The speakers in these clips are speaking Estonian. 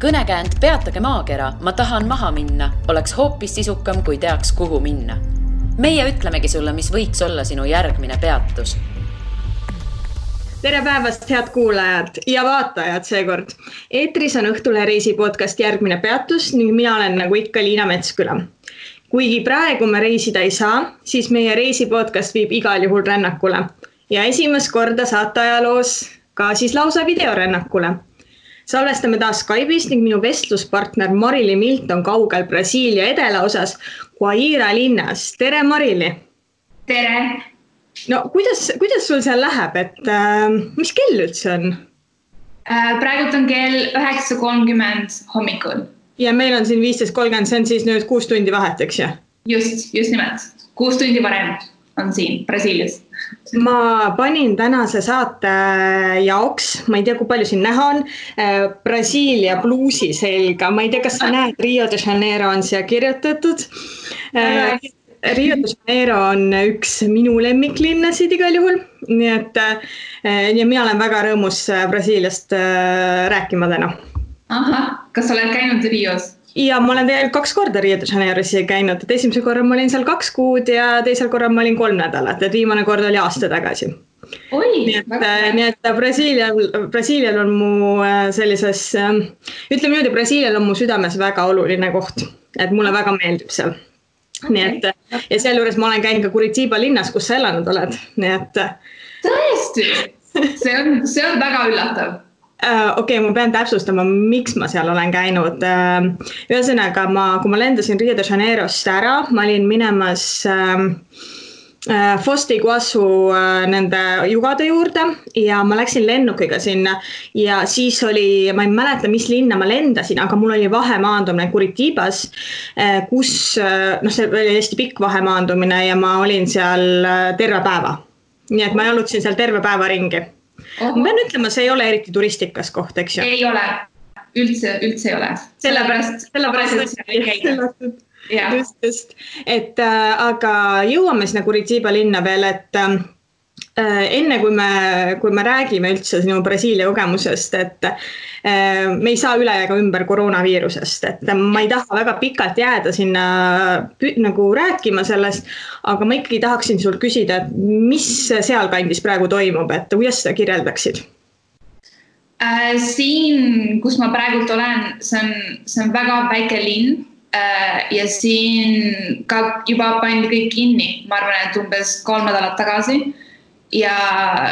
Kõnekäänd Peatage maakera, ma tahan maha minna, oleks hoopis sisukam, kui teaks, kuhu minna. Meie ütlemegi sulle, mis võiks olla sinu järgmine peatus. Tere päevast, head kuulajad ja vaatajad seekord. Eetris on Õhtule reisi podcast Järgmine peatus ning mina olen nagu ikka Liina Metsküla. Kuigi praegu me reisida ei saa, siis meie reisi podcast viib igal juhul rännakule. Ja esimest korda saate ajaloos ka siis lausa videorännakule. Salvestame taas Skype'is ning minu vestluspartner Marili Milt on kaugel Brasiilia edelaosas Guaira linnas. Tere Marili! Tere! No kuidas sul seal läheb, et mis kell üldse on? Praegult on kell 9:30 hommikul. Ja meil on siin 15:30, see on siis nüüd 6 tundi vahet, eks ju? Just nimelt. 6 tundi varem on siin Brasiilias. Ma panin tänase saate jaoks, ma ei tea, kui palju siin näha on, Brasiilia bluusi selga. Ma ei tea, kas sa näed, Rio de Janeiro on siia kirjutatud. Rio de Janeiro on üks minu lemmiklinnasid igal juhul. Nii et ja mina olen väga rõõmus Brasiiliast rääkima täna. Aha, kas sa oled käinud Rios? Ja ma olen tegelikult 2 korda Rio de Janeiros käinud. Et esimese korra ma olin seal 2 kuud ja teisel korra ma olin 3 nädalat. Et viimane kord oli aasta tagasi. Oi, nii et Brasiilial on mu sellises, ütleme nüüd, Brasiilial on mu südames väga oluline koht. Et mulle väga meeldib seal. Nii et, ja selle juures ma olen käinud ka Curitiba linnas, kus sa elanud oled. Nii et... Tõesti? See on väga üllatav. Okei, ma pean täpsustama, miks ma seal olen käinud. Ühesõnaga, kui ma lendasin Rio de Janeirost ära, ma olin minemas Foz do Iguaçu nende jugade juurde ja ma läksin lennukiga sinna ja siis oli, ma ei mäleta, mis linna ma lendasin, aga mul oli vahemaandumine Curitibas, kus, see oli hästi pikk vahemaandumine ja ma olin seal terve päeva. Nii et ma jalutasin seal terve päeva ringi. Ma pean ütlema, see ei ole eriti turistikas koht, eks ju? Ei ole, üldse ei ole. Sellepärast Just. Et, aga jõuame sinna Curitiba linna veel, et enne kui me räägime üldse sinu Brasiilia kogemusest, et me ei saa üle ega ümber koroonaviirusest, et ma ei taha väga pikalt jääda sinna nagu rääkima sellest, aga ma ikkagi tahaksin sul küsida, et mis seal kandis praegu toimub, et kuidas seda kirjeldaksid? Siin, kus ma praegult olen, see on väga väike linn ja siin ka juba pandi kõik kinni, ma arvan, et umbes 3 nädalat tagasi ja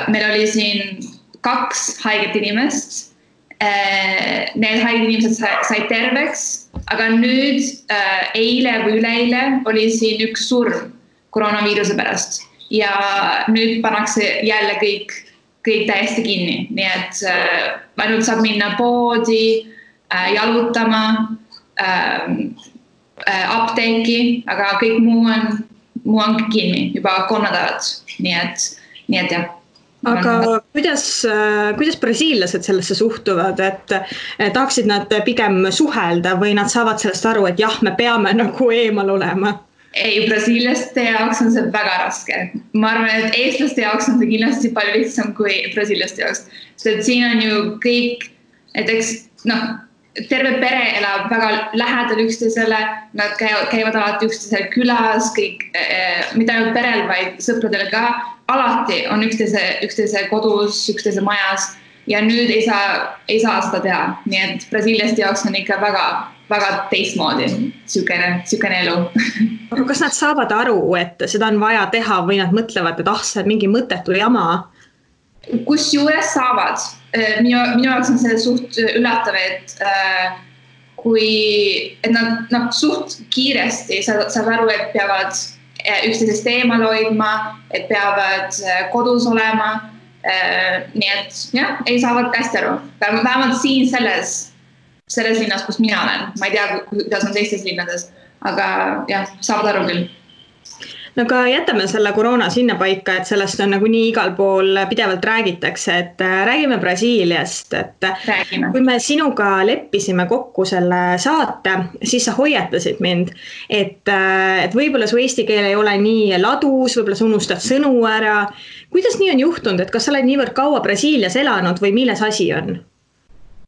meil oli siin 2 haiget inimest. Need haiget inimesed said terveks, aga nüüd eile või üleeile oli siin 1 surm koroonaviiruse pärast ja nüüd pannakse jälle kõik täiesti kinni, nii et ainult saab minna poodi, jalutama, apteeki, aga kõik muu on kinni juba 3 nädalat, nii et jah. Aga kuidas brasiillased sellesse suhtuvad, et tahaksid nad pigem suhelda või nad saavad sellest aru, et jah, me peame nagu eemal olema? Ei, brasiillaste jaoks on see väga raske. Ma arvan, et eestlaste jaoks on see kindlasti palju lihtsam kui brasiillaste jaoks. Sest siin on ju kõik, näiteks, terve pere elab väga lähedal üksteisele, nad käivad alati üksteisel külas, kõik, mitte ainult perel, vaid sõpradele ka. Alati on üksteise kodus, üksteise majas ja nüüd ei saa seda teha. Nii et brasiiliaste jaoks on ikka väga teistmoodi sükene elu. Aga kas nad saavad aru, et seda on vaja teha või nad mõtlevad, et see on mingi mõttetu jama? Kus juures saavad. Minu jaoks on see suht üllatav, et nad suht kiiresti saavad aru, et peavad üksteisest eemal hoidma, et peavad kodus olema. Nii et jah, ei saavad hästi aru. Vähemalt siin selles linnas, kus mina olen. Ma ei tea, kuidas on teistes linnades, aga jah, saavad aru küll. No aga jätame selle koroona sinna paika, et sellest on nagu nii igal pool pidevalt räägitakse, et räägime Brasiiliast, et kui me sinuga leppisime kokku selle saate, siis sa hoiatasid mind, et võib-olla su eesti keel ei ole nii ladus, võib-olla sa unustad sõnu ära. Kuidas nii on juhtunud, et kas sa oled niivõrd kaua Brasiilias elanud või milles asi on?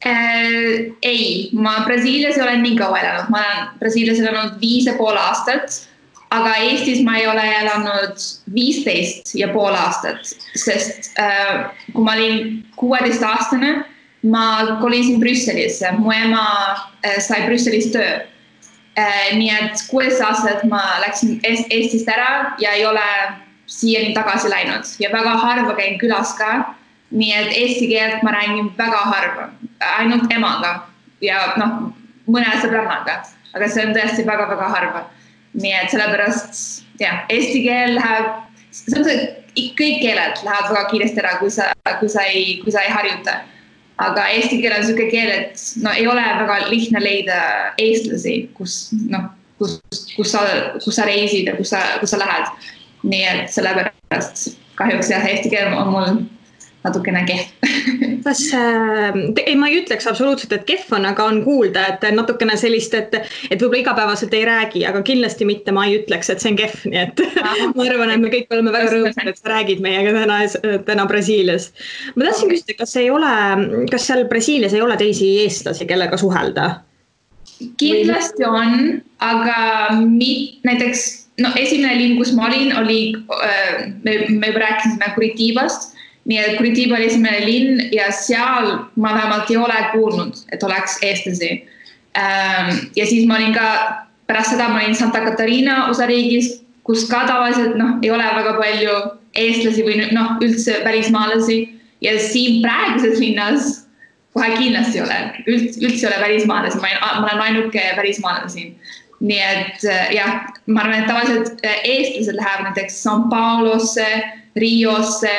Ei, ma Brasiilias ei ole nii kaua elanud, ma olen Brasiilias elanud 5,5 aastat, aga Eestis ma ei ole elanud 15,5 aastat, sest kui ma olin 16-aastane, ma kolisin Brüsselisse, mu ema sai Brüsselis töö. Nii et 16 aastat ma läksin Eestist ära ja ei ole siiani tagasi läinud ja väga harva käin külas ka. Nii et eesti keelt ma räägin väga harva, ainult emaga ja mõne sõbrannaga, aga see on tõesti väga-väga harva. Nii et sellepärast, eesti keel läheb, kõik keeled lähevad väga kiiresti ära, kui sa ei harjuta. Aga eesti keel on selline keel, et ei ole väga lihtne leida eestlasi, kus sa reisid ja kus sa lähed. Nii et sellepärast kahjuks eesti keel on mul natukene kehv. Ma ei ütleks absoluutselt, et kehv on, aga on kuulda, et natukene sellist, et võib-olla igapäevaselt ei räägi, aga kindlasti mitte ma ei ütleks, et see on kehv. Nii et ma arvan, et me kõik oleme väga rõõmsad, et sa räägid meiega täna Brasiilias. Ma tahtsin küsida, kas seal Brasiilias ei ole teisi eestlasi, kellega suhelda? Kindlasti on, aga näiteks esimene linn, kus ma olin, me juba rääkisime Curitibast. Nii et Curitiba oli esimene linn ja seal ma vähemalt ei ole kuulnud, et oleks eestlasi. Ja siis ma olin ka, pärast seda ma olin Santa Catarina osariigis, kus ka tavaliselt ei ole väga palju eestlasi või üldse välismaalasi. Ja siin praeguses linnas kohe kindlasti ei ole, üldse ei ole välismaalasi, ma olen ainuke välismaalasi siin. Nii et ma arvan, et tavaliselt eestlased lähevad näiteks São Paulosse, Riosse,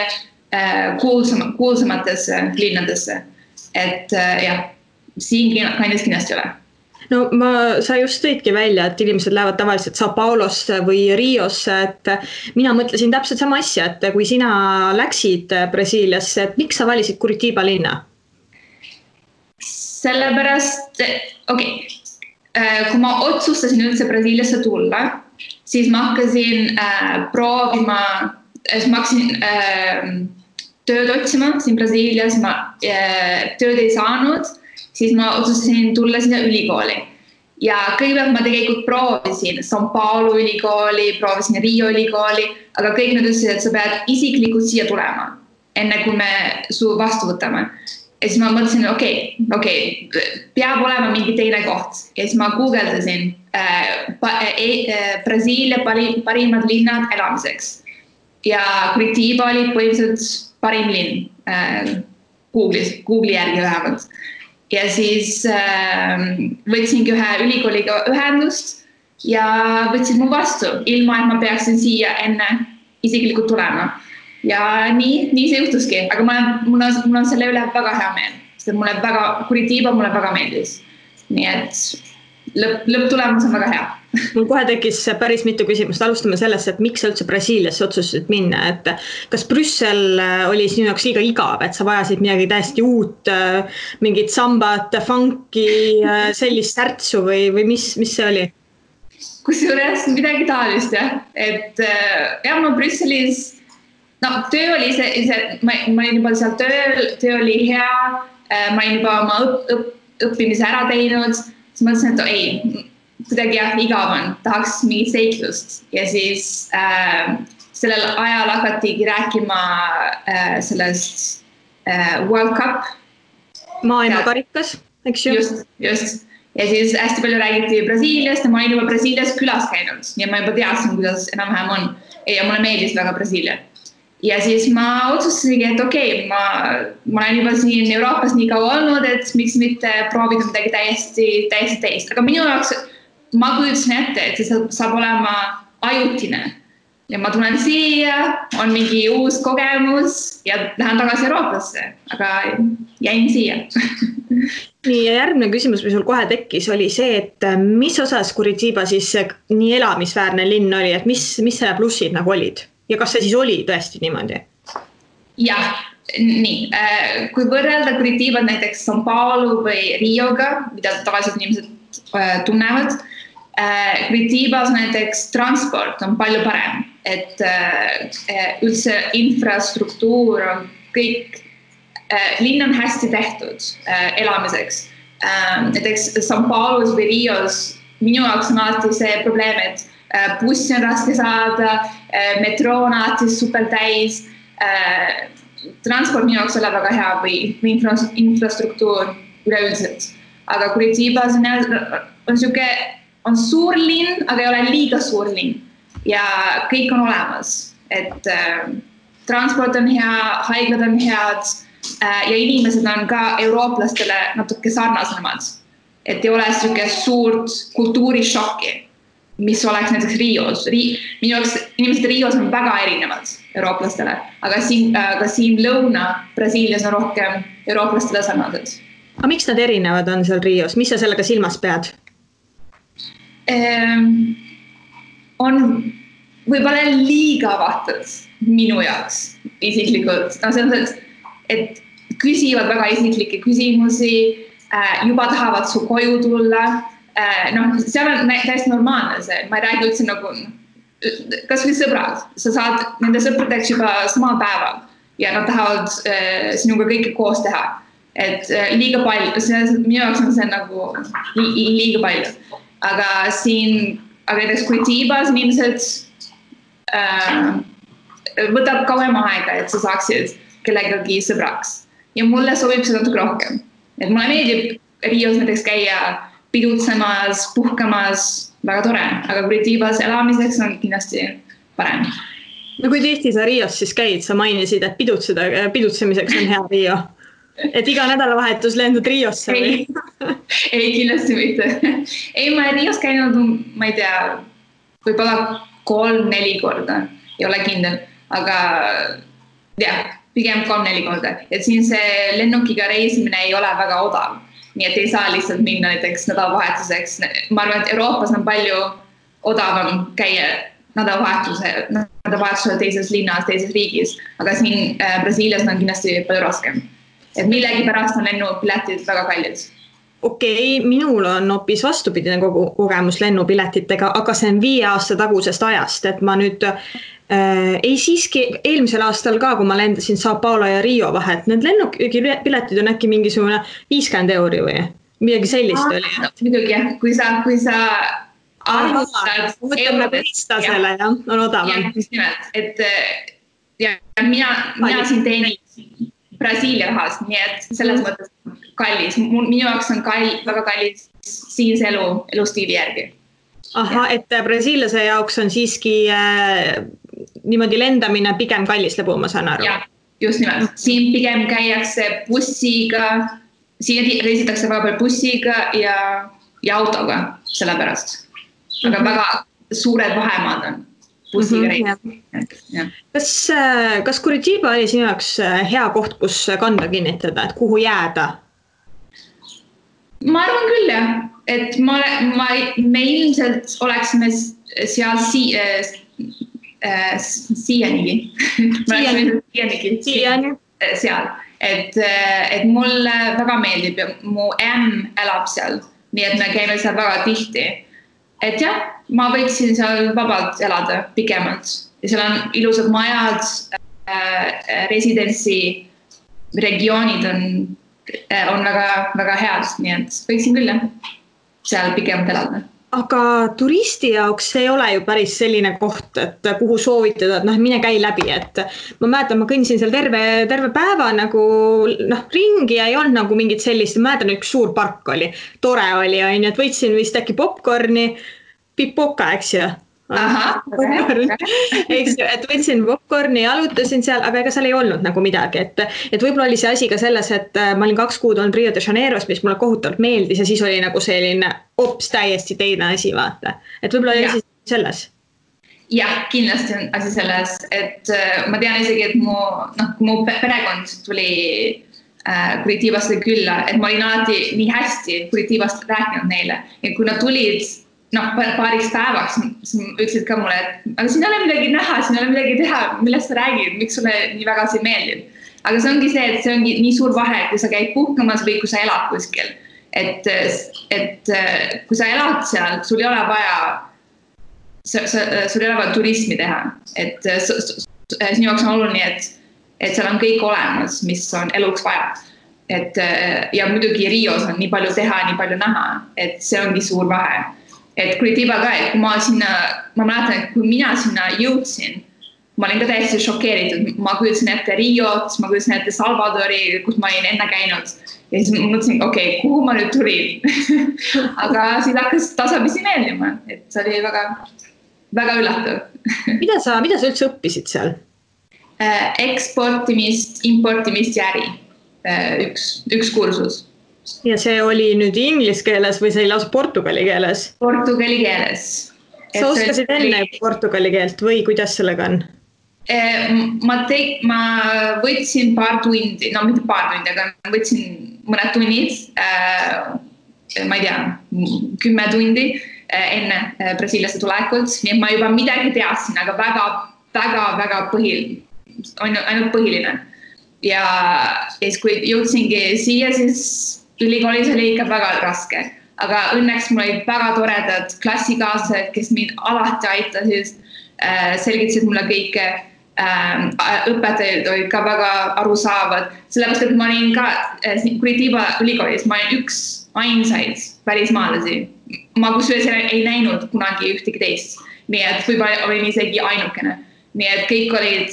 kuulsamatesse linnadesse. Et siin kandis kindlasti ole. Sa just tõidki välja, et inimesed lähevad tavaliselt São Paulosse või Riosse, et mina mõtlesin täpselt sama asja, et kui sina läksid Brasiiliasse, et miks sa valisid Curitiba linna? Sellepärast, kui ma otsustasin üldse Brasiiliasse tulla, siis ma hakkasin proovima, ma hakkasin tööd otsima siin Brasiilias, ma tööd ei saanud, siis ma otsustasin tulla sinna ülikooli. Ja kõigepealt ma tegelikult proovisin São Paulo ülikooli, proovisin Rio ülikooli, aga kõik nad ütlesid, et sa pead isiklikult siia tulema, enne kui me su vastu võtame. Ja siis ma mõtlesin, peab olema mingi teine koht. Ja siis ma googledasin Brasiilia parimad linnad elamiseks. Ja Curitiba oli põhiliselt parim linn Google'i järgi vähemalt. Ja siis võtsingi ühe ülikooliga ühendust ja võtsin mu vastu, ilma et ma peaksin siia enne isiklikult tulema. Ja nii see juhtuski, aga mul on selle üle väga hea meel, sest Curitiba mulle väga meeldis. Nii et lõpptulemus on väga hea. Mul kohe tekkis päris mitu küsimust. Alustame sellest, et miks sa üldse Brasiiliasse otsustasid minna, et kas Brüssel oli sinu jaoks liiga igav, et sa vajasid midagi täiesti uut, mingit sambat, funki, sellist särtsu või mis see oli? Kusjuures midagi taolist, et ma Brüsselis, töö oli ma olin juba seal töö oli hea, ma olin juba oma õppimise ära teinud, siis mõtlesin, et kuidagi igav on, tahaks mingit seiklust. Ja siis sellel ajal hakatigi rääkima sellest World Cup. Maailmakarikas, eks ju? Just. Ja siis hästi palju räägiti Brasiiliast ja ma olin juba Brasiilias külas käinud. Ja ma juba teadsin, kuidas enam-vähem on. Ja mulle meeldis väga Brasiilia. Ja siis ma otsustasingi, et ma olen juba siin Euroopas nii kaua olnud, et miks mitte proovida midagi täiesti teist. Aga minu jaoks ma kujutasin ette, et see saab olema ajutine. Ja ma tulen siia, on mingi uus kogemus ja lähen tagasi Euroopasse, aga jäin siia. Nii, ja järgmine küsimus, mis sul kohe tekkis, oli see, et mis osas Curitiba siis nii elamisväärne linn oli, et mis selle plussid nagu olid? Ja kas see siis oli tõesti niimoodi? Jah, nii. Kui võrrelda Curitiba näiteks São Paulo või Rioga, mida tavaliselt inimesed tunnevad, Curitibas näiteks transport on palju parem, et üldse infrastruktuur on kõik linn on hästi tehtud elamiseks. Näiteks São Paulos või Rios minu jaoks on alati see probleem, et bussi on raske saada, metroo on alati super täis, transport minu jaoks ole väga hea või infrastruktuur üleüldiselt. Aga Curitibas on suur linn, aga ei ole liiga suur linn ja kõik on olemas. Et transport on hea, haiglad on head ja inimesed on ka eurooplastele natuke sarnasemad. Et ei ole selline suurt kultuurishokki, mis oleks näiteks Rios. Minu jaoks inimesed Rios on väga erinevad eurooplastele, aga siin Lõuna-Brasiilias on rohkem eurooplastele sarnased. Aga miks nad erinevad on seal Rios? Mis sa sellega silmas pead? On võib-olla liiga avatud minu jaoks isiklikult. Et küsivad väga isiklikke küsimusi, juba tahavad su koju tulla. Seal on täiesti normaalne see. Ma ei räägi üldse nagu, kas või sõbrad. Sa saad nende sõpradeks juba samal päeval ja nad tahavad sinuga kõike koos teha. Et liiga palju, minu jaoks on see nagu liiga palju. Aga näiteks Curitibas inimesed võtab kauem aega, et sa saaksid kellegagi sõbraks. Ja mulle sobib see natuke rohkem. Et mulle meeldib Rios näiteks käia pidutsemas, puhkamas, väga tore, aga Curitibas elamiseks on kindlasti parem. No kui tihti sa Rios siis käid, sa mainisid, et pidutsemiseks on hea Rio. Et iga nädalavahetus lendud Riosse või? Ei, kindlasti mitte. Ei, ma olen Rios käinud, ma ei tea, võib-olla 3-4 korda, ei ole kindel, aga pigem 3-4 korda. Et siin see lennukiga reisimine ei ole väga odav. Nii et ei saa lihtsalt minna näiteks nädalavahetuseks. Ma arvan, et Euroopas on palju odavam käia nädalavahetusel teises linnas, teises riigis, aga siin Brasiilias on kindlasti palju raskem. Et millegi pärast on lennupiletid väga kallid. Okei, minul on hoopis vastupidine kogemus lennupiletitega, aga see on 5 aasta tagusest ajast, et ma nüüd ei siiski eelmisel aastal ka, kui ma lendasin São Paulo ja Rio vahet, need lennupiletid on äkki mingisugune 50 € või midagi sellist oli. Muidugi jah, kui sa arvustad võtame on odavam. Et mina siin teenin Brasiilia rahast, nii et selles mõttes kallis. Minu jaoks on väga kallis siinse elustiili järgi. Aha, et Brasiiliase jaoks on siiski niimoodi lendamine pigem kallis lõbu, ma saan aru. Ja, just nimelt. Siin pigem käiakse bussiga, siin reisitakse väga palju bussiga ja autoga sellepärast. Aga väga suured vahemaad on bussiga reisiga. Kas Curitiba oli sinu jaoks hea koht, kus kanda kinnitada, et kuhu jääda? Ma arvan küll jah, et me ilmselt oleksime seal siianigi. Seal. Et mulle väga meeldib ja mu elab seal, nii et me käime seal väga tihti. Et jah, ma võiksin seal vabalt elada pikemalt ja seal on ilusad majad, residentsi regioonid on väga head, nii et võiksin küll seal pikemalt elada. Aga turisti jaoks see ei ole ju päris selline koht, et kuhu soovitada, et mine käi läbi, et ma mäletan, ma kõndisin seal terve päeva nagu ringi ja ei olnud nagu mingit sellist, ma mäletan, üks suur park oli, tore oli, et võitsin vist äkki popcorni, pipoka, eks ju? Aha, eks ju, et võtsin popcorni ja alutasin seal, aga ega seal ei olnud nagu midagi, et võib-olla oli see asi ka selles, et ma olin 2 kuud olnud Rio de Janeiros, mis mulle kohutavalt meeldis ja siis oli nagu selline hops täiesti teine asi, vaata. Et võib-olla oli asi selles. Jah, kindlasti on asi selles, et ma tean isegi, et mu perekond tuli Curitibasse külla, et ma olin alati nii hästi Curitibast rääkinud neile ja kui nad tulid paariks päevaks, siis ütlesid ka mulle, et aga siin ei ole midagi näha, siin ei ole midagi teha, millest sa räägid, miks sulle nii väga see meeldib. Aga see ongi see, et see ongi nii suur vahe, kui sa käid puhkamas või kui sa elad kuskil. Et kui sa elad seal, sul ei ole vaja turismi teha. Et sinu jaoks on oluline, et et seal on kõik olemas, mis on eluks vaja. Et, ja muidugi Rios on nii palju teha, nii palju näha, et see ongi suur vahe. Et Curitiba ka, et kui ma mäletan, et kui mina sinna jõudsin, ma olin ka täiesti šokeeritud. Ma kujutasin ette Riot, ma kujutasin ette Salvadori, kus ma olin enne käinud. Ja siis ma mõtlesin, okei, kuhu ma nüüd tulin? Aga siis hakkas tasapisi meeldima, et see oli väga, väga üllatav. Mida sa üldse õppisid seal? Eksportimist, importimist ja äri. Üks kursus. Ja see oli nüüd inglise keeles või see oli lausa portugali keeles? Portugali keeles. Sa oskasid enne portugali keelt või kuidas sellega on? Ma võtsin paar tundi, no mitte paar tundi, aga võtsin mõned tunnid, ma ei tea, 10 tundi enne Brasiiliasse tulekult, nii et ma juba midagi teadsin, aga väga ainult põhiline. Ja siis kui jõudsingi siia, siis ülikoolis oli ikka väga raske. Aga õnneks mul olid väga toredad klassikaaslased, kes mind alati aitasid, selgitasid mulle kõike. Õpetajad olid ka väga arusaavad. Sellepärast, et ma olin ka Curitiba ülikoolis, ma olin üks ainsaid välismaalasi. Ma kusjuures ei näinud kunagi ühtegi teist. Nii et võib-olla olin isegi ainukene. Nii et kõik olid,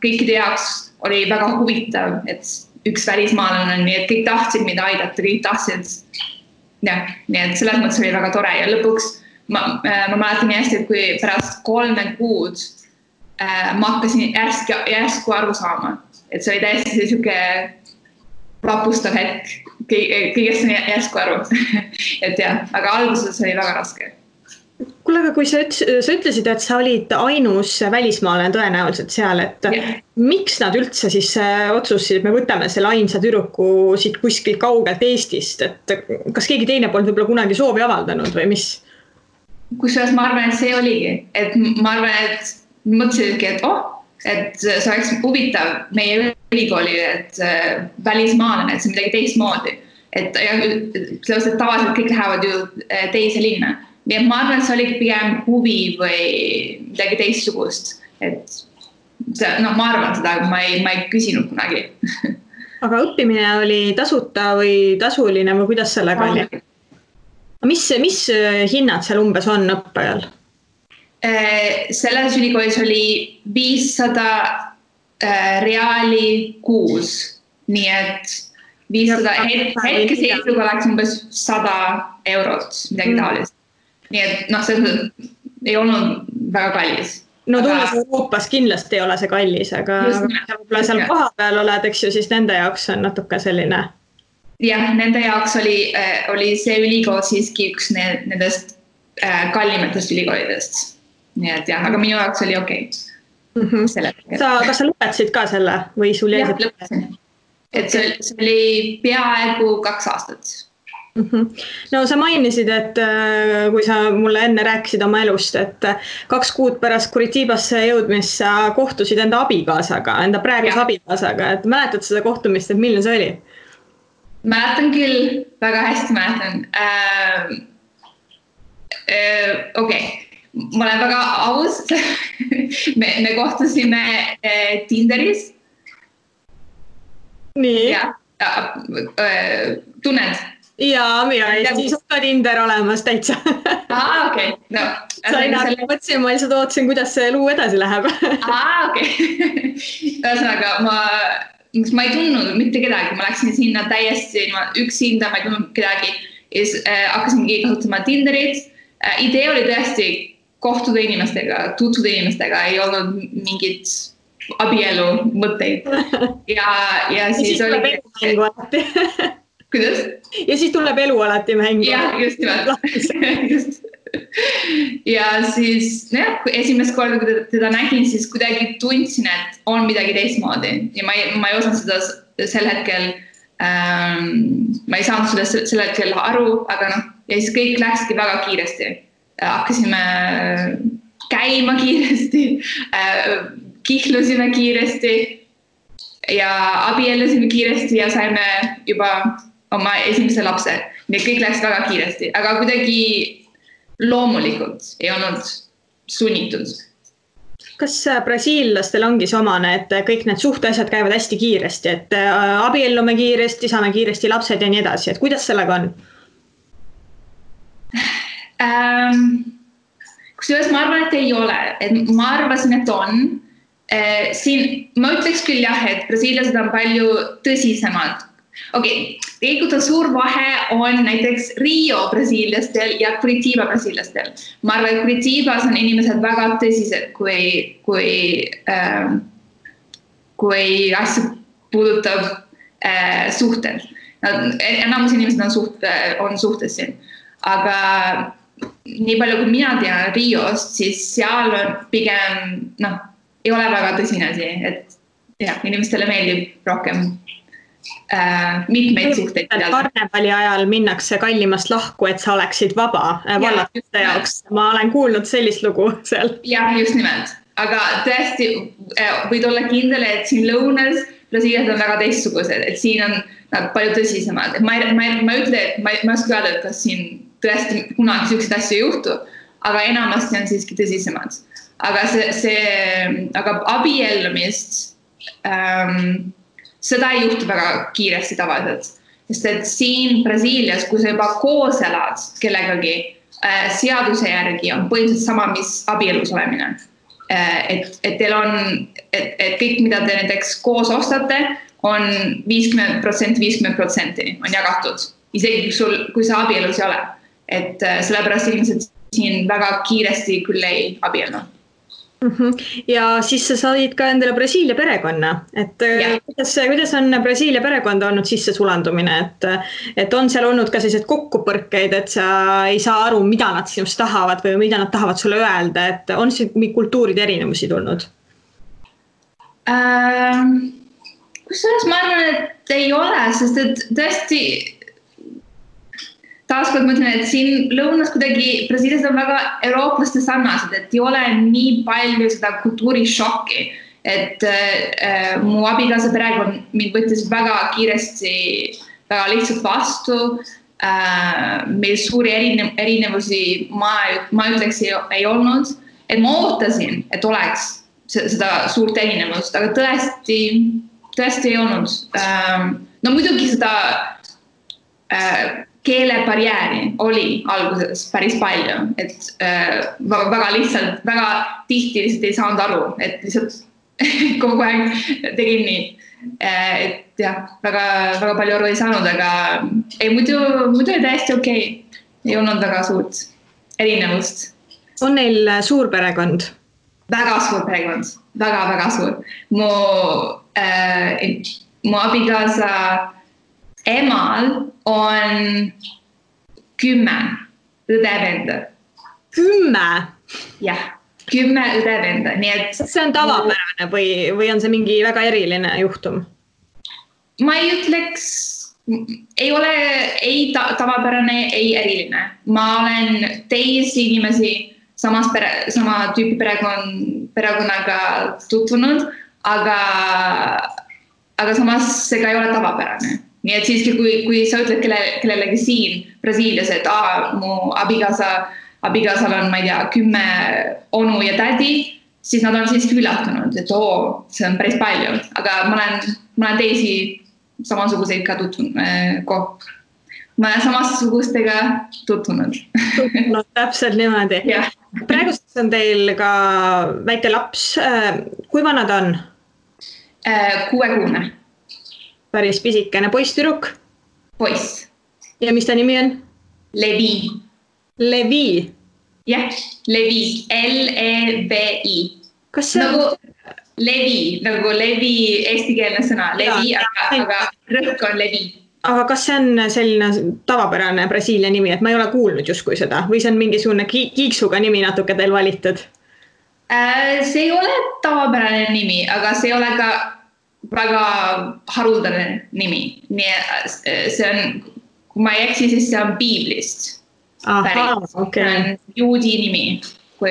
kõikide jaoks oli väga huvitav, et üks välismaalane on, nii et kõik tahtsid mida aidata, kõik tahtsid. Ja, nii et selles mõttes oli väga tore ja lõpuks ma mäletan nii hästi, et kui pärast 3 kuud ma hakkasin järsku aru saama, et see oli täiesti selline vapustav hetk, kõigest on järsku aru. Et jah, aga alguses oli väga raske. Kuule, aga kui sa ütlesid, et sa olid ainus välismaalane tõenäoliselt seal, et miks nad üldse siis otsusid, et me võtame selle ainsa tüdruku siit kuskilt kaugelt Eestist, et kas keegi teine polnud võib-olla kunagi soovi avaldanud või mis? Kusjuures ma arvan, et see oligi, et ma arvan, et mõtlesidki, et see oleks huvitav meie ülikooli, et välismaalane, et see midagi teistmoodi. Et tavaliselt kõik lähevad ju teise linna. Nii et ma arvan, et see oli pigem huvi või midagi teistsugust. Et ma arvan seda, aga ma ei küsinud kunagi. Aga õppimine oli tasuta või tasuline või kuidas sellega oli? Mis hinnad seal umbes on õppajal? Selles ülikoolis oli 500 reaali kuus, nii et 500 hetke seisuga oleks umbes 100 eurot, midagi taolist. Nii et see ei olnud väga kallis. No tulles Euroopas kindlasti ei ole see kallis, aga võib-olla seal koha peal oled, eks ju, siis nende jaoks on natuke selline. Jah, nende jaoks oli see ülikool siiski üks nendest kallimatest ülikoolidest. Nii et jah, aga minu jaoks oli okei. Kas sa lõpetasid ka selle või sul jäi? Jah, lõpetasin. Et see oli peaaegu 2 aastat. No sa mainisid, et kui sa mulle enne rääkisid oma elust, et 2 kuud pärast Curitibasse jõudmist sa kohtusid enda abikaasaga, enda praeguse abikaasaga, et mäletad seda kohtumist, et milline see oli? Mäletan küll, väga hästi mäletan. Okei. Ma olen väga aus. Me kohtusime Tinderis. Nii. Tunned? Jaa, Eestis on ka Tinder olemas täitsa. Okei. Mõtlesin, ma lihtsalt ootasin, kuidas see elu edasi läheb. Okei. Ühesõnaga, ma ei tundnud mitte kedagi. Ma läksin sinna täiesti üksinda, ma ei tundnud kedagi. Hakkasingi kasutama Tinderit. Idee oli tõesti kohtuda inimestega, tutvuda inimestega, ei olnud mingit abielu mõtteid. Ja siis oli... Mängu alati. Kuidas? Ja siis tuleb elu alati mängu. Jah, just nimelt. Ja siis esimest korda, kui teda nägin, siis kuidagi tundsin, et on midagi teistmoodi. Ja ma ei osanud seda sel hetkel, ma ei saanud seda sel hetkel aru, aga ja siis kõik läkski väga kiiresti. Hakkasime käima kiiresti, kihlusime kiiresti ja abiellusime kiiresti ja saime juba oma esimese lapse. Nii kõik läks väga kiiresti, aga kuidagi loomulikult ei olnud sunnitud. Kas brasiillastel ongi see omane, et kõik need suhteasjad käivad hästi kiiresti, et abiellume kiiresti, saame kiiresti lapsed ja nii edasi, et kuidas sellega on? Kusjuures ma arvan, et ei ole, et ma arvasin, et on. Siin ma ütleks küll jah, et brasiilased on palju tõsisemad. Tegelikult on suur vahe on näiteks Rio brasiilastel ja Curitiba brasiilastel. Ma arvan, et Curitibas on inimesed väga tõsised, kui asja puudutab suhted. Enamus inimesed on suhtes siin. Aga nii palju, kui mina tean Riost, siis seal on pigem, ei ole väga tõsine asi, et jah, inimestele meeldib rohkem mitmeid suhteid. Karnevali ajal minnakse kallimast lahku, et sa oleksid vaba vallatuste jaoks. Ma olen kuulnud sellist lugu seal. Jah, just nimelt. Aga tõesti võid olla kindel, et siin lõunas Brasiiliad on väga teistsugused, et siin on nad palju tõsisemad. Ma ütle, et ma ei oska öelda, et kas siin tõesti kunagi selliseid asju ei juhtu, aga enamasti on siiski tõsisemad. Aga abiellumist seda ei juhtu väga kiiresti tavaliselt. Sest et siin Brasiilias, kui sa juba koos elad kellegagi, seaduse järgi on põhimõtteliselt sama, mis abielus olemine. Et teil on, et kõik, mida te näiteks koos ostate, on 50%, 50% on jagatud. Isegi kui sa abielus ei ole. Et sellepärast inimesed siin väga kiiresti küll ei abiellu. Ja siis sa said ka endale Brasiilia perekonna, et kuidas on Brasiilia perekonda olnud sisse sulandumine, et on seal olnud ka sellised kokkupõrkeid, et sa ei saa aru, mida nad sinust tahavad või mida nad tahavad sulle öelda, et on siin kultuuride erinevusi tulnud? Kusjuures ma arvan, et ei ole, sest et tõesti taaskord mõtlen, et siin lõunas kuidagi Brasiilias on väga eurooplaste sarnased, et ei ole nii palju seda kultuurishokki, et mu abikaasa perekond mind võttis väga kiiresti, väga lihtsalt vastu. Meil suuri erinevusi ma ütleks ei olnud, et ma ootasin, et oleks seda suurt erinevust, aga tõesti ei olnud. No muidugi seda keelebarjääri oli alguses päris palju, et väga lihtsalt, väga tihti lihtsalt ei saanud aru, et lihtsalt kogu aeg tegin nii. Et jah, väga palju aru ei saanud, aga muidu oli täiesti okei. Ei olnud väga suurt erinevust. On neil suur perekond? Väga suur perekond, väga suur. Mu abikaasa emal on 10 õdevenda. 10? Jah, 10 õdevenda. See on tavapärane või on see mingi väga eriline juhtum? Ma ei ütleks, ei ole ei tavapärane, ei eriline. Ma olen teisi inimesi sama tüüpi perekonnaga tutvunud, aga samas see ka ei ole tavapärane. Nii et siiski, kui sa ütled kellelegi siin Brasiilias, et mu abikaasal on, ma ei tea, 10 onu ja tädi, siis nad on siiski üllatunud, et see on päris palju. Aga ma olen teisi samasuguseid ka tutvunud. Ma olen samasugustega tutvunud. Täpselt niimoodi. Praeguseks on teil ka väike laps. Kui vana ta on? 6-kuune. Päris pisikene. Poiss, tüdruk? Poiss. Ja mis ta nimi on? Levi. Levi? Jah, Levi. L-E-V-I. Kas see on? Nagu Levi eestikeelne sõna. Levi, aga rõhk on Levi. Aga kas see on selline tavapärane Brasiilia nimi, et ma ei ole kuulnud justkui seda? Või see on mingisugune kiiksuga nimi natuke teil valitud? See ei ole tavapärane nimi, aga see ei ole ka väga haruldane nimi. See on, kui ma ei eksi, siis see on Biiblist. Okay. See on juudi nimi. Mu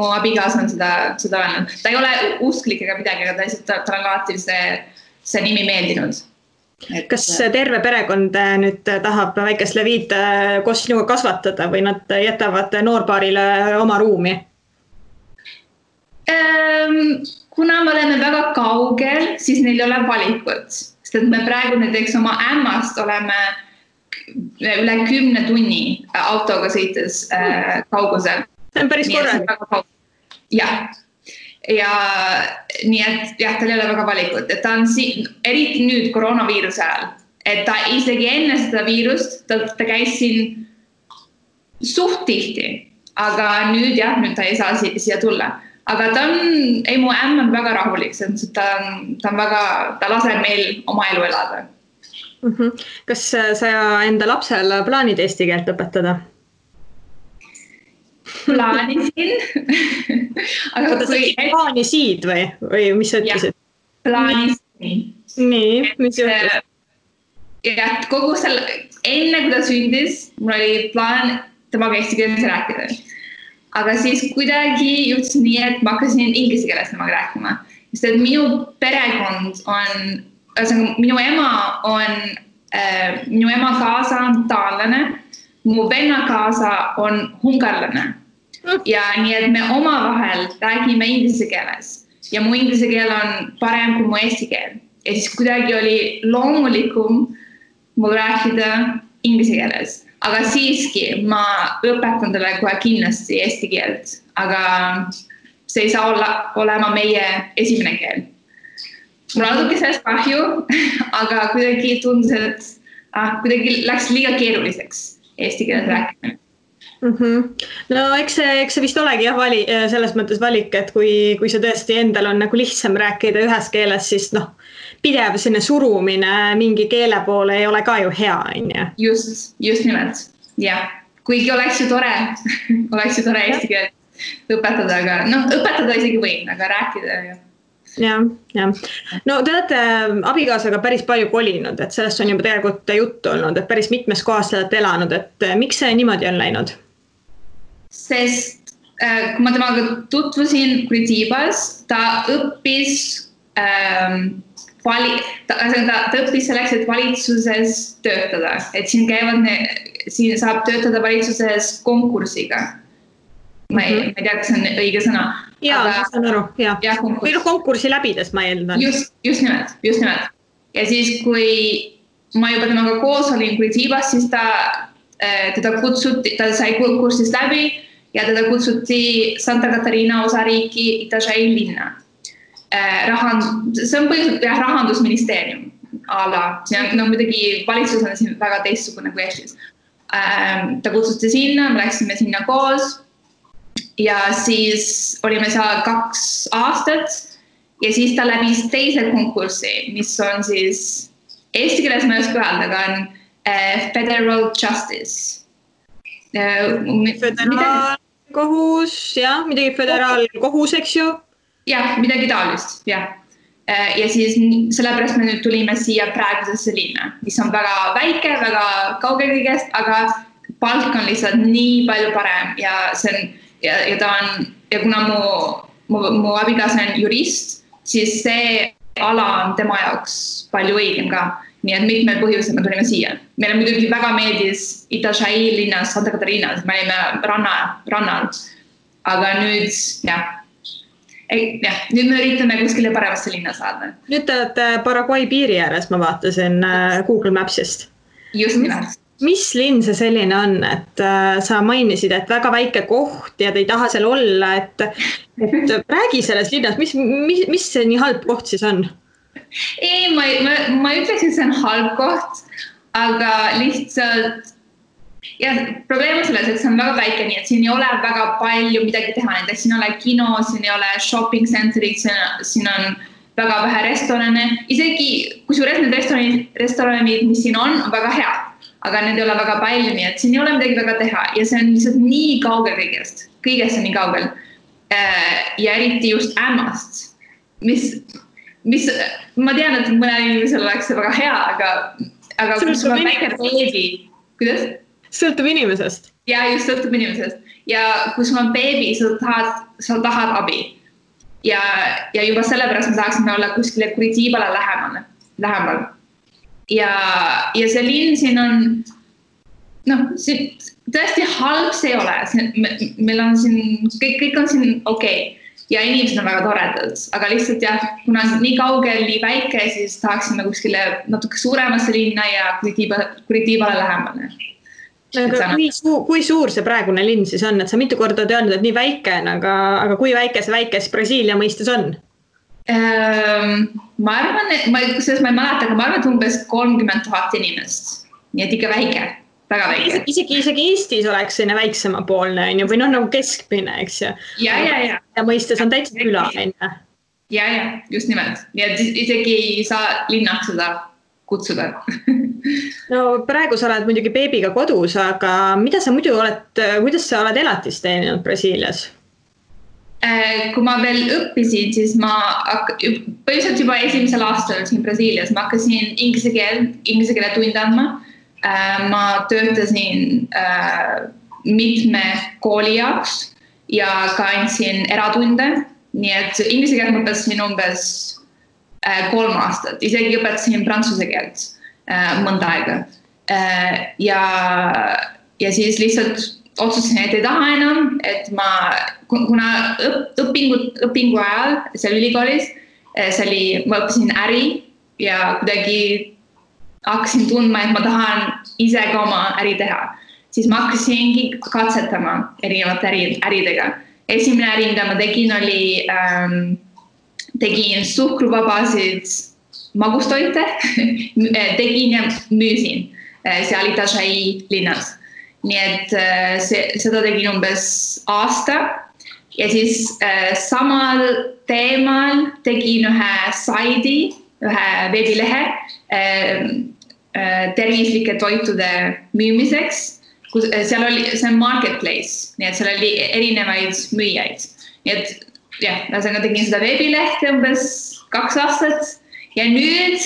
abikaasa on seda öelnud. Ta ei ole usklik ega midagi, aga ta on alati see nimi meeldinud. Kas terve perekond nüüd tahab väikest Levit koos sinuga kasvatada või nad jätavad noorpaarile oma ruumi? Kuna me oleme väga kaugel, siis neil ei ole valikut. Sest et me praegu näiteks oma ämmast oleme üle 10 tunni autoga sõites kaugusel. See on päris korralik. Jah. Ja nii et jah, tal ei ole väga valikut, et ta on eriti nüüd koroonaviiruse ajal, et ta isegi enne seda viirust, ta käis siin suht tihti, aga nüüd jah, nüüd ta ei saa siia tulla. Aga mu ämm on väga rahulik, ta laseb meil oma elu elada. Kas sa enda lapsel plaanid eesti keelt õpetada? Plaanisin. Aga plaanisid või mis sa ütlesid? Plaanisin. Nii, mis juhtus? Ja kogu enne kui ta sündis, mul oli plaan temaga eesti keeles rääkida. Aga siis kuidagi juhtus nii, et ma hakkasin inglise keeles temaga rääkima. Sest et minu perekond on, minu ema kaasa on taanlane, mu venna kaasa on hungarlane. Ja nii, et me omavahel räägime inglise keeles. Ja mu inglise keel on parem kui mu eesti keel. Ja siis kuidagi oli loomulikum mul rääkida inglise keeles. Aga siiski ma õpetan talle kohe kindlasti eesti keelt, aga see ei saa olema meie esimene keel. Mul natuke sellest kahju, aga kuidagi tundus, et kuidagi läks liiga keeruliseks eesti keeles rääkimine. No eks see vist olegi selles mõttes valik, et kui see tõesti endal on nagu lihtsam rääkida ühes keeles, siis pidev sinne surumine mingi keele poole ei ole ka ju hea, on ju? Just nimelt, jah. Kuigi oleks ju tore eesti keelt õpetada, aga õpetada isegi võin, aga rääkida ju. Ja. No te olete abikaasaga päris palju kolinud, et sellest on juba tegelikult juttu olnud, et päris mitmes kohas te olete elanud, et miks see niimoodi on läinud? Sest kui ma temaga tutvusin Kuritibas, ta õppis ta õppis selleks, et valitsuses töötada, et siin saab töötada valitsuses konkursiga. Ma ei tea, kas see on õige sõna. Jaa, ma saan aru, jah. Või konkursi läbides ma eeldan. Just nimelt. Ja siis, kui ma juba temaga koos olin Kuritibas, siis teda kutsuti, ta sai konkursist läbi ja teda kutsuti Santa Catarina osariiki Itajaí linna. See on põhiliselt rahandusministeerium ala. Muidugi valitsus on siin väga teistsugune kui Eestis. Ta kutsuti sinna, me läksime sinna koos ja siis olime seal 2 aastat ja siis ta läbis teise konkursi, mis on siis eesti keeles ma ei oska öelda, aga on Federal Justice. Föderaalkohus, jah, midagi föderaalkohus, eks ju? Jah, midagi taolist, jah. Ja siis sellepärast me nüüd tulime siia praegusesse linna, mis on väga väike, väga kauge kõigest, aga palk on lihtsalt nii palju parem ja kuna mu abikaasa on jurist, siis see ala on tema jaoks palju õigem ka. Nii et mitmed põhjused me tulime siia. Meile muidugi väga meeldis Itajaí linnas, Santa Catarinas, me olime rannal. Aga nüüd, nüüd me üritame kuskile paremasse linna saada. Nüüd te olete Paraguay piiri ääres, ma vaatasin Google Mapsist. Just nimelt. Mis linn see selline on, et sa mainisid, et väga väike koht ja te ei taha seal olla, et räägi selles linnas, mis see nii halb koht siis on? Ei, ma ütleks, et see on halb koht, aga lihtsalt probleem on selles, et see on väga väike, nii et siin ei ole väga palju midagi teha, näiteks siin ei ole kino, siin ei ole shopping centerid, siin on väga vähe restorane, isegi kusjuures need restoranid, mis siin on väga head, aga need ei ole väga palju, nii et siin ei ole midagi väga teha ja see on lihtsalt nii kaugel kõigest on nii kaugel ja eriti just ämmast, mis ma tean, et mõnel inimesel oleks see väga hea, aga kui sul on väike beebi, kuidas? Sõltub inimesest. Ja just sõltub inimesest. Ja kui sul on beebi, sa tahad abi. Ja juba sellepärast me tahaksime olla kuskile Kuritibale lähemal. Ja see linn siin on, tõesti halb see ei ole. Meil on siin, kõik on siin okei. ja inimesed on väga toredad, aga lihtsalt jah, kuna nii kaugel, nii väike, siis tahaksime kuskile natuke suuremasse linna ja Curitiibale lähemale. Aga kui suur see praegune linn siis on, et sa mitu korda oled öelnud, et nii väike on, aga kui väikes Brasiilia mõistes on? Ma arvan, et ma ei mäleta, aga ma arvan, et umbes 30 000 inimest, nii et ikka väike. Väga väike. Isegi Eestis oleks selline väiksemapoolne või nagu keskmine, eks ju. Ja mõistes on täitsa küla. Ja, just nimelt. Nii et isegi ei saa linnaks seda kutsuda. No praegu sa oled muidugi beebiga kodus, aga kuidas sa oled elatist teeninud Brasiilias? Kui ma veel õppisin, siis ma põhiliselt juba esimesel aastal siin Brasiilias, ma hakkasin inglise keele tunde andma. Ma töötasin mitme kooli jaoks ja ka andsin eratunde, nii et inglise keelt ma õpetasin umbes 3 aastat, isegi õpetasin prantsuse keelt mõnda aega. Ja siis lihtsalt otsustasin, et ei taha enam, et kuna õpingu ajal seal ülikoolis, ma õppisin äri ja kuidagi hakkasin tundma, et ma tahan ise ka oma äri teha. Siis ma hakkasingi katsetama erinevate äridega. Esimene äri, mida ma tegin, tegin suhkruvabasid magustoite, tegin ja müüsin seal Itajaí linnas. Nii et seda tegin umbes aasta ja siis samal teemal tegin ühe saidi, ühe veebilehe tervislike toitude müümiseks. See on marketplace, nii et seal oli erinevaid müüjaid. Nii et jah, tegin seda veebilehte umbes 2 aastat ja nüüd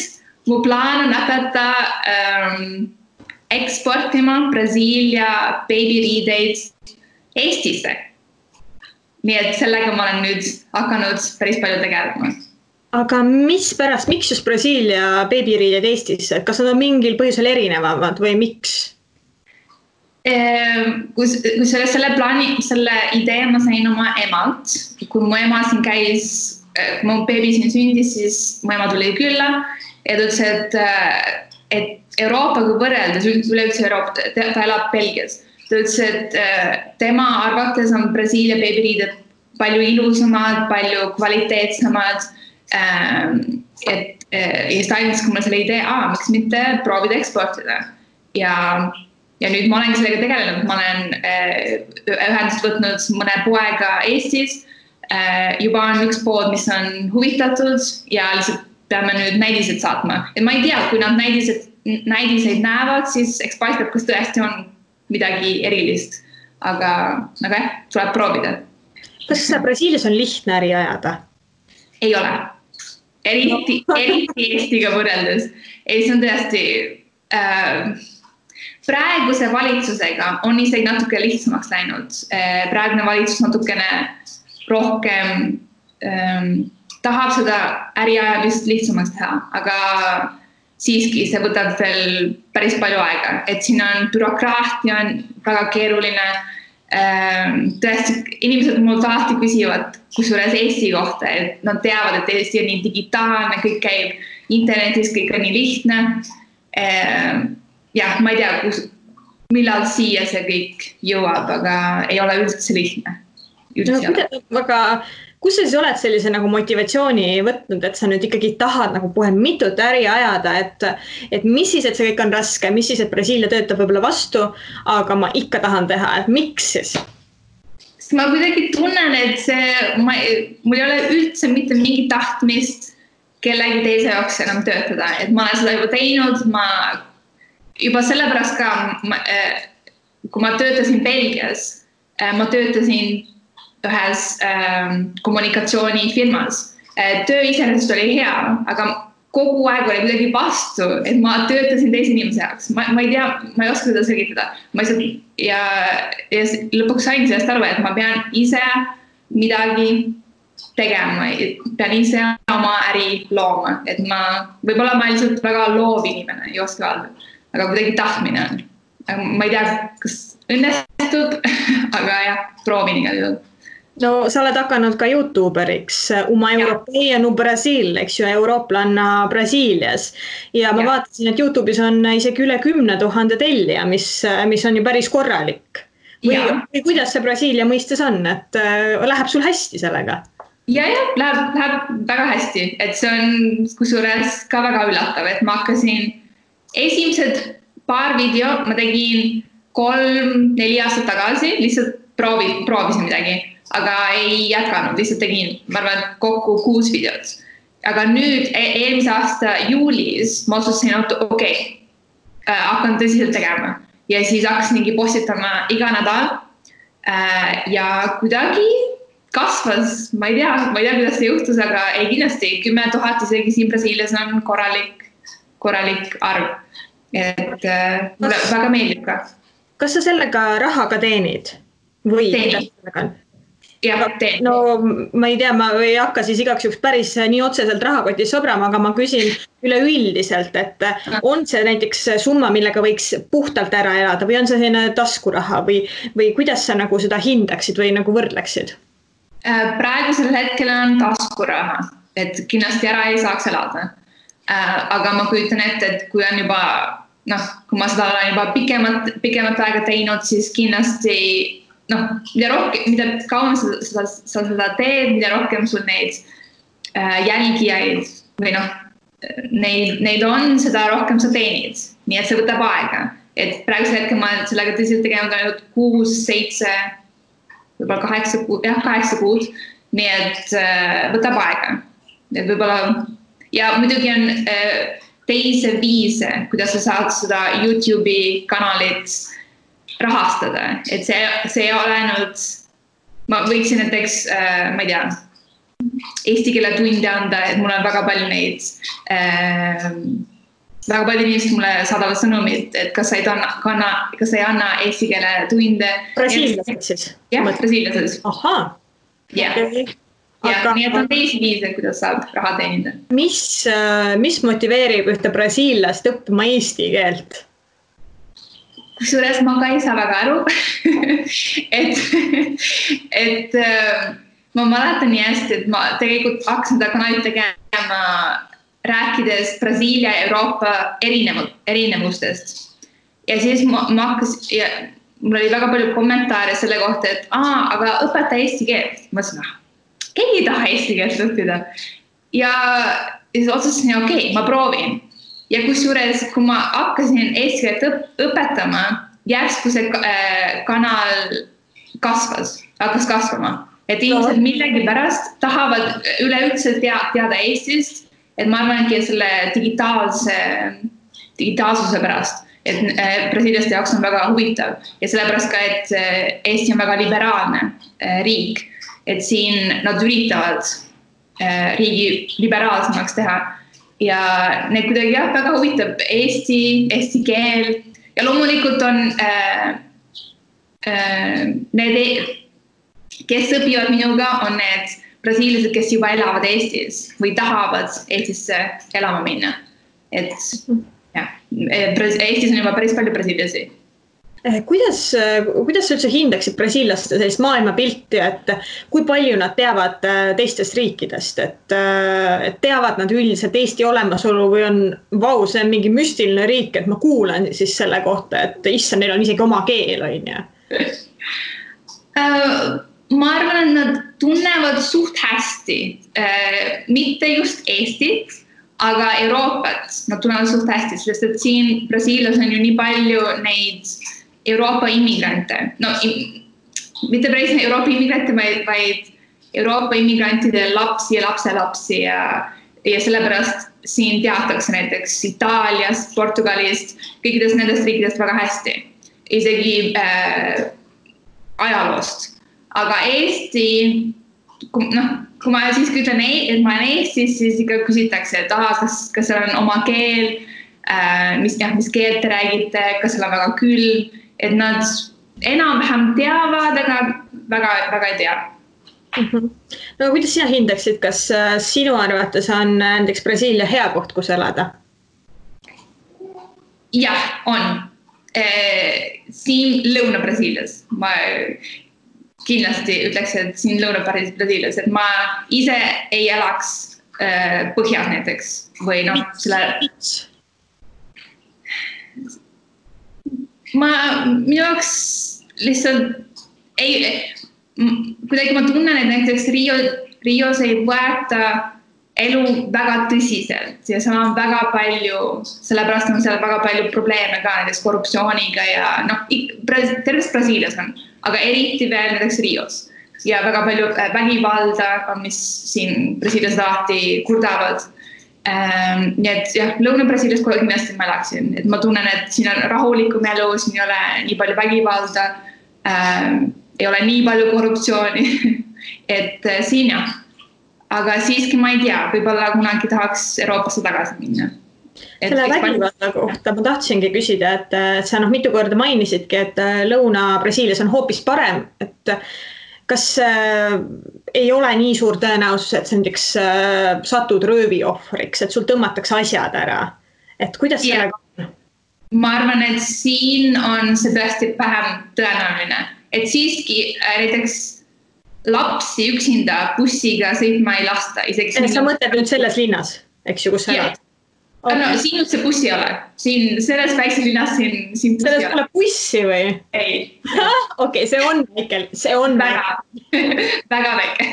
mu plaan on hakata eksportima Brasiilia beebiriideid Eestisse. Nii et sellega ma olen nüüd hakanud päris palju tegelema. Aga miks just Brasiilia beebiriided Eestisse? Kas nad on mingil põhjusel erinevamad või miks? Kui selle idee ma sain oma emalt, kui mu ema siin käis, kui mu beebi siin sündis, siis mu ema tuli külla ja ta ütles, et Euroopaga võrreldes, üleüldse Euroopa, ta elab Belgias, ta ütles, et tema arvates on Brasiilia beebiriided palju ilusamad, palju kvaliteetsemad. Ja siis ta andis mulle selle idee, miks mitte proovida eksportida. Ja nüüd ma olengi sellega tegelenud, ma olen ühendust võtnud mõne poega Eestis. Juba on üks pood, mis on huvitatud ja lihtsalt peame nüüd näidised saatma. Et ma ei tea, kui nad näidiseid näevad, siis eks paistab, kas tõesti on midagi erilist. Aga jah, tuleb proovida. Kas Brasiilias on lihtne äri ajada? Ei ole. Eriti Eestiga võrreldes. See on tõesti praeguse valitsusega on isegi natuke lihtsamaks läinud. Praegune valitsus natukene rohkem tahab seda äriajamist lihtsamaks teha, aga siiski see võtab veel päris palju aega, et siin on bürokraatia on väga keeruline. Tõesti, inimesed mult alati küsivad kusjuures Eesti kohta, et nad teavad, et Eesti on nii digitaalne, kõik käib internetis, kõik on nii lihtne. Jah, ma ei tea, millal siia see kõik jõuab, aga ei ole üldse lihtne. Aga kus sa siis oled sellise nagu motivatsiooni võtnud, et sa nüüd ikkagi tahad nagu kohe mitut äri ajada, et mis siis, et see kõik on raske, mis siis, et Brasiilia töötab võib-olla vastu, aga ma ikka tahan teha, et miks siis? Sest ma kuidagi tunnen, et mul ei ole üldse mitte mingi tahtmist kellegi teise jaoks enam töötada, et ma olen seda juba teinud, juba sellepärast ka, kui ma töötasin Belgias, ma töötasin ühes kommunikatsioonifirmas. Töö iseenesest oli hea, aga kogu aeg oli midagi vastu, et ma töötasin teise inimese jaoks. Ma ei tea, ma ei oska seda selgitada. Ja lõpuks sain sellest aru, et ma pean ise midagi tegema, pean ise oma äri looma. Et võib-olla ma lihtsalt väga loov inimene, ei oska öelda, aga kuidagi tahtmine on. Ma ei tea, kas õnnestub, aga jah, proovin igal juhul. No sa oled hakanud ka YouTuberiks, Uma Europea no Brasil, eks ju, eurooplanna Brasiilias. Ja ma vaatasin, et YouTube'is on isegi üle 10 000 tellija, mis on ju päris korralik. Või kuidas see Brasiilia mõistes on, et läheb sul hästi sellega? Ja, läheb väga hästi, et see on kusjuures ka väga üllatav, et ma hakkasin esimesed paar video, ma tegin 3-4 aastat tagasi, lihtsalt proovisin midagi. Aga ei jätkanud, lihtsalt tegin, ma arvan, kokku 6 videot. Aga nüüd eelmise aasta juulis ma otsustasin, et okei, hakkan tõsiselt tegema. Ja siis hakkasingi postitama iga nädal. Ja kuidagi kasvas, ma ei tea, kuidas see juhtus, aga ei kindlasti 10 000 isegi siin Brasiilias on korralik arv. Et mulle väga meeldib ka. Kas sa sellega raha ka teenid? Või teen. Ja, teen. No ma ei tea, ma ei hakka siis igaks juhuks päris nii otseselt rahakotis sobrama, aga ma küsin üleüldiselt, et on see näiteks summa, millega võiks puhtalt ära elada või on see selline taskuraha või kuidas sa nagu seda hindaksid või nagu võrdleksid? Praegusel hetkel on taskuraha, et kindlasti ära ei saaks elada. Aga ma kujutan ette, et kui on juba, kui ma seda olen juba pikemat aega teinud, siis kindlasti mida kauem sa seda teed, mida rohkem sul neid jälgijaid või neid on, seda rohkem sa teenid. Nii et see võtab aega. Et praegusel hetkel ma sellega tõsiselt tegema ainult 6, 7, võib-olla 8 kuud. Nii et võtab aega. Et võib-olla, ja muidugi on teise viise, kuidas sa saad seda YouTube'i kanalit rahastada, et see ei ole ainult, ma võiksin näiteks, ma ei tea, eesti keele tunde anda, et mul on väga palju neid, väga palju inimesed mulle saadavad sõnumid, et kas sa ei anna eesti keele tunde. Brasiiliased siis? Jah, brasiiliased. Ahaa. Ja, nii et on teisi viise, kuidas saab raha teenida. Mis motiveerib ühte brasiillast õppima eesti keelt? Kusjuures ma ka ei saa väga aru, et ma mäletan nii hästi, et ma tegelikult hakkasin seda kanalit tegema rääkides Brasiilia ja Euroopa erinevustest. Ja siis mul oli väga palju kommentaare selle kohta, et aga õpeta eesti keelt. Ma mõtlesin, keegi ei taha eesti keelt õppida. Ja siis otsustasin, okei, ma proovin. Ja kusjuures, kui ma hakkasin eesti keelt õpetama, järsku see kanal hakkas kasvama. Et inimesed millegi pärast tahavad üleüldse teada Eestist, et ma arvangi selle digitaalsuse pärast, et brasiiliaste jaoks on väga huvitav ja sellepärast ka, et Eesti on väga liberaalne riik, et siin nad üritavad riigi liberaalsemaks teha. Ja need kuidagi väga huvitab eesti keel ja loomulikult on need, kes õpivad minuga, on need brasiilased, kes juba elavad Eestis või tahavad Eestisse elama minna. Et Eestis on juba päris palju brasiiliasi. Kuidas sa üldse hindaksid brasiilaste sellist maailmapilti, et kui palju nad teavad teistest riikidest, et teavad nad üldiselt Eesti olemasolu või on see on mingi müstiline riik, et ma kuulan siis selle kohta, et issand, neil on isegi oma keel, on ju? Ma arvan, et nad tunnevad suht hästi, mitte just Eestit, aga Euroopat nad tunnevad suht hästi, sest et siin Brasiilias on ju nii palju neid Euroopa immigrante. Mitte päris Euroopa immigrante, vaid Euroopa immigrantide lapsi ja lapselapsi ja sellepärast siin teatakse näiteks Itaaliast, Portugalist, kõikidest nendest riikidest väga hästi. Isegi ajaloost. Aga Eesti, kui ma siis ütlen, et ma olen Eestis, siis ikka küsitakse, et kas seal on oma keel, mis keelt te räägite, kas seal on väga külm, et nad enam-vähem teavad, aga väga ei tea. No kuidas sina hindaksid, kas sinu arvates on näiteks Brasiilia hea koht, kus elada? Jah, on. Siin Lõuna-Brasiilias. kindlasti ütleks, et siin Lõuna-Brasiilias, et ma ise ei elaks põhjas näiteks või noh, minu jaoks lihtsalt kuidagi ma tunnen, et näiteks Rios ei võeta elu väga tõsiselt ja seal on väga palju, sellepärast on seal väga palju probleeme ka näiteks korruptsiooniga ja noh, terves Brasiilias on, aga eriti veel näiteks Rios ja väga palju vägivalda, mis siin Brasiilias alati kurdavad. Nii et jah, Lõuna-Brasiilias kohe kindlasti ma elaksin, et ma tunnen, et siin on rahulikum elu, siin ei ole nii palju vägivalda, ei ole nii palju korruptsiooni, et siin jah. Aga siiski ma ei tea, võib-olla kunagi tahaks Euroopasse tagasi minna. Selle vägivalda kohta ma tahtsingi küsida, et sa mitu korda mainisidki, et Lõuna-Brasiilias on hoopis parem, et kas ei ole nii suur tõenäosus, et sa näiteks satud röövi ohvriks, et sul tõmmatakse asjad ära, et kuidas sellega on? Ma arvan, et siin on see tõesti vähem tõenäoline, et siiski näiteks lapsi üksinda bussiga sõitma ei lasta. Sa mõtled nüüd selles linnas, eks ju, kus sa elad? Okay. No, siin üldse bussi ei ole. Siin selles väikses linnas siin bussi selles pole bussi või? Ei. Okei, see on väike. See on väga väike.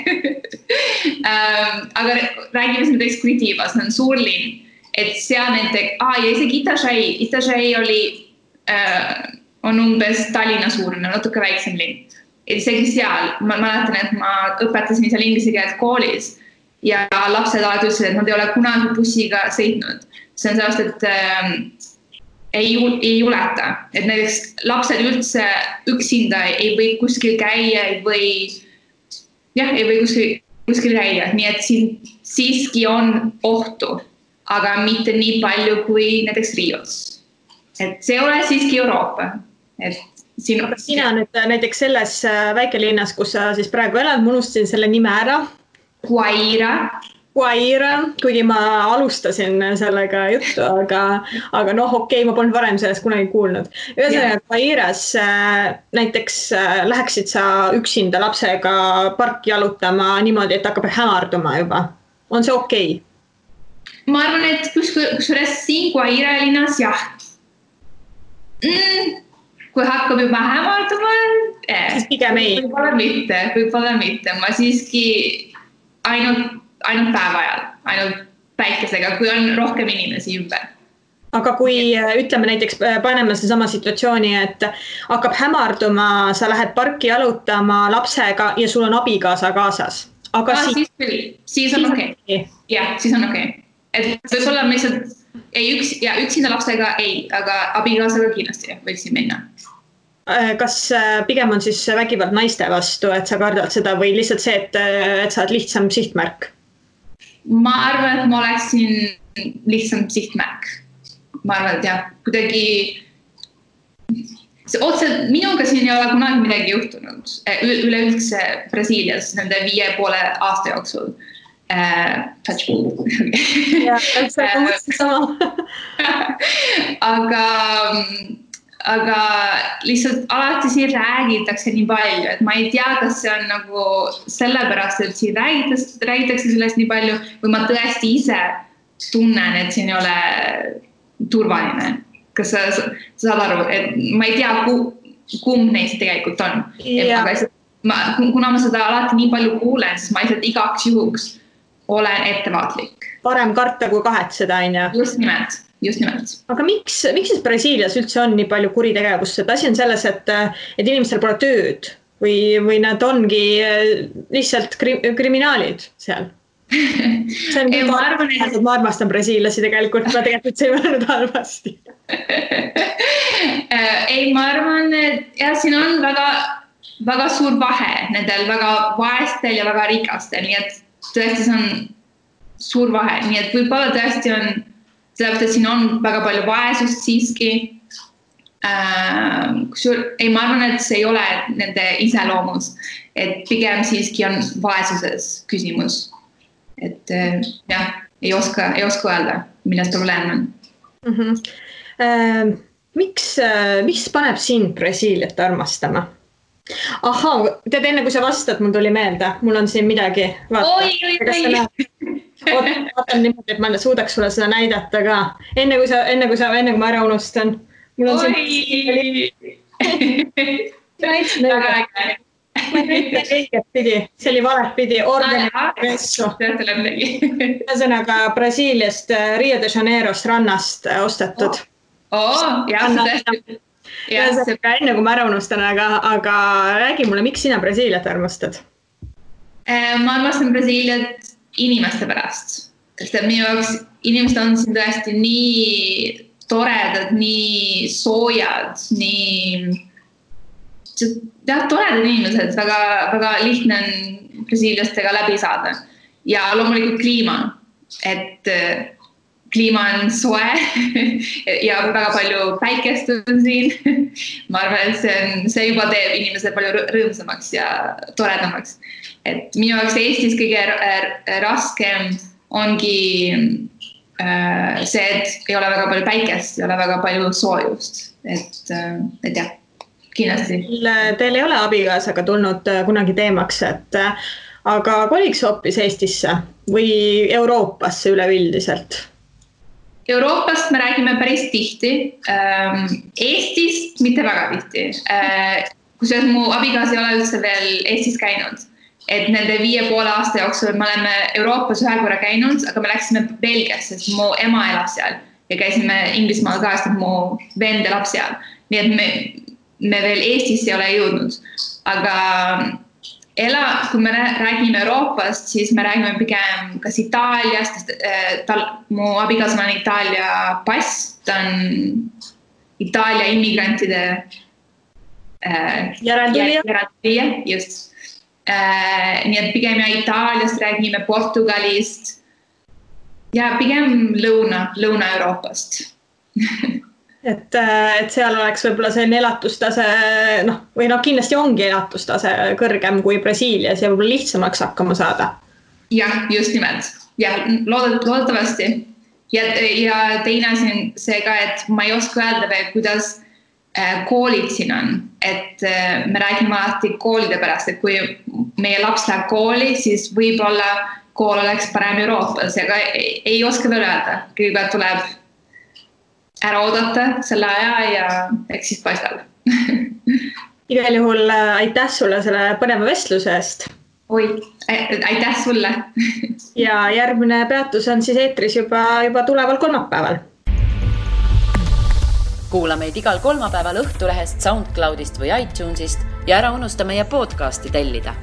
Aga räägime siin näiteks Curitiba, see on suur linn. Et seal näiteks, ja isegi Itašai on umbes Tallinna suurune, natuke väiksem linn. Et isegi seal, ma mäletan, et ma õpetasin seal inglise keelt koolis ja lapsed alati ütlesid, et nad ei ole kunagi bussiga sõitnud. See on sellest, et ei juleta. Et näiteks lapsed üldse üksinda ei või kuskil käia, ei või kuskil käia. Nii et siin siiski on ohtu, aga mitte nii palju kui näiteks Rios. Et see ole siiski Euroopa. Et sina nüüd näiteks selles väikelinnas, kus sa siis praegu elad, ma unustasin selle nime ära. Guaira, kuigi ma alustasin sellega juttu, aga noh, okei, ma polnud varem sellest kunagi kuulnud. Ühesõnaga, Guairas näiteks läheksid sa üksinda lapsega parki jalutama niimoodi, et hakkab hämarduma juba. On see okei? Ma arvan, et kusjuures siin Guaira linnas, jah. Kui hakkab juba hämarduma, siis pigem ei. Võib-olla mitte. Ma siiski ainult päeva ajal, ainult päikesega, kui on rohkem inimesi ümber. Aga kui ütleme näiteks paneme sama situatsiooni, et hakkab hämarduma, sa lähed parki jalutama lapsega ja sul on abikaasa kaasas. Aga siis on okei. Jah, siis on okei. Et võib-olla lihtsalt üksinda lapsega ei, aga abikaasaga kindlasti võiksin minna. Kas pigem on siis vägivald naiste vastu, et sa kardad seda või lihtsalt see, et sa oled lihtsam sihtmärk? Ma arvan, et ma oleksin lihtsam sihtmärk. Ma arvan, et jah, kuidagi minuga siin ei ole kunagi midagi juhtunud. Üleüldse Brasiilias nende 5,5 aasta jooksul. Aga lihtsalt alati siin räägitakse nii palju, et ma ei tea, kas see on nagu sellepärast, et siin räägitakse sellest nii palju või ma tõesti ise tunnen, et siin ei ole turvaline. Kas sa saad aru, et ma ei tea, kumb neist tegelikult on. Kuna ma seda alati nii palju kuulen, siis ma lihtsalt igaks juhuks olen ettevaatlik. Parem karta kui kahetseda, on ju? Just nimelt. Aga miks siis Brasiilias üldse on nii palju kuritegevust? Asi on selles, et inimestel pole tööd või nad ongi lihtsalt kriminaalid seal. Ma armastan brasiillasi tegelikult, ma tegelikult see ei mõelnud halvasti. Ei, ma arvan, et siin on väga suur vahe nendel väga vaestel ja väga rikastel, nii et tõesti see on suur vahe, nii et võib-olla tõesti on sellepärast, et siin on väga palju vaesust siiski. Ei, ma arvan, et see ei ole nende iseloomus, et pigem siiski on vaesuses küsimus. Et jah, ei oska öelda, milles probleem on. Miks paneb sind Brasiiliat armastama? Ahhaa, tead enne kui sa vastad, mul tuli meelde, mul on siin midagi. Oi. Vaatan niimoodi, et ma suudaks sulle seda näidata ka. Enne kui ma ära unustan. Mul on siin... Väga äge. Ma näitan õiget pidi, see oli valet pidi, organi ressu. Ühesõnaga Brasiiliast, Rio de Janeirost rannast ostetud. Jah, tõesti. Enne kui ma ära unustan, aga räägi mulle, miks sina Brasiiliat armastad? Ma armastan Brasiiliat inimeste pärast. Sest et minu jaoks inimesed on siin tõesti nii toredad, nii soojad, nii toredad inimesed, väga lihtne on brasiiliastega läbi saada. Ja loomulikult kliima, et kliima on soe ja väga palju päikest on siin. Ma arvan, et see juba teeb inimesed palju rõõmsamaks ja toredamaks. Et minu jaoks Eestis kõige raskem ongi see, et ei ole väga palju päikest, ei ole väga palju soojust. Et jah, kindlasti. Teil ei ole abikaasaga tulnud kunagi teemaks, aga koliks hoopis Eestisse või Euroopasse üleüldiselt? Euroopast me räägime päris tihti, Eestist mitte väga tihti. Kusjuures mu abikaas ei ole üldse veel Eestis käinud. Et nende 5,5 aasta jooksul me oleme Euroopas ühe korra käinud, aga me läksime Belgiasse, sest mu ema elab seal ja käisime Inglismaal ka, sest mu vend elab seal. Nii et me veel Eestisse ei ole jõudnud. Aga kui me räägime Euroopast, siis me räägime pigem kas Itaaliast, mu abikaasal on Itaalia pass, ta on Itaalia immigrantide järeltulija, just. Nii et pigem Itaaliast räägime, Portugalist ja pigem Lõuna-Euroopast. Et seal oleks võib-olla selline elatustase, või kindlasti ongi elatustase kõrgem kui Brasiilias ja võib-olla lihtsamaks hakkama saada. Jah, just nimelt. Ja loodetavasti. Ja teine asi on see ka, et ma ei oska öelda veel, kuidas koolid siin on. Et me räägime alati koolide pärast, et kui meie laps läheb kooli, siis võib-olla kool oleks parem Euroopas, aga ei oska veel öelda. Kõigepealt tuleb ära oodata selle aja ja eks siis paistab. Igal juhul aitäh sulle selle põneva vestluse eest. Aitäh sulle. Ja järgmine peatus on siis eetris juba tuleval kolmapäeval. Kuula meid igal kolmapäeval Õhtulehest, SoundCloudist või iTunesist ja ära unusta meie podcasti tellida.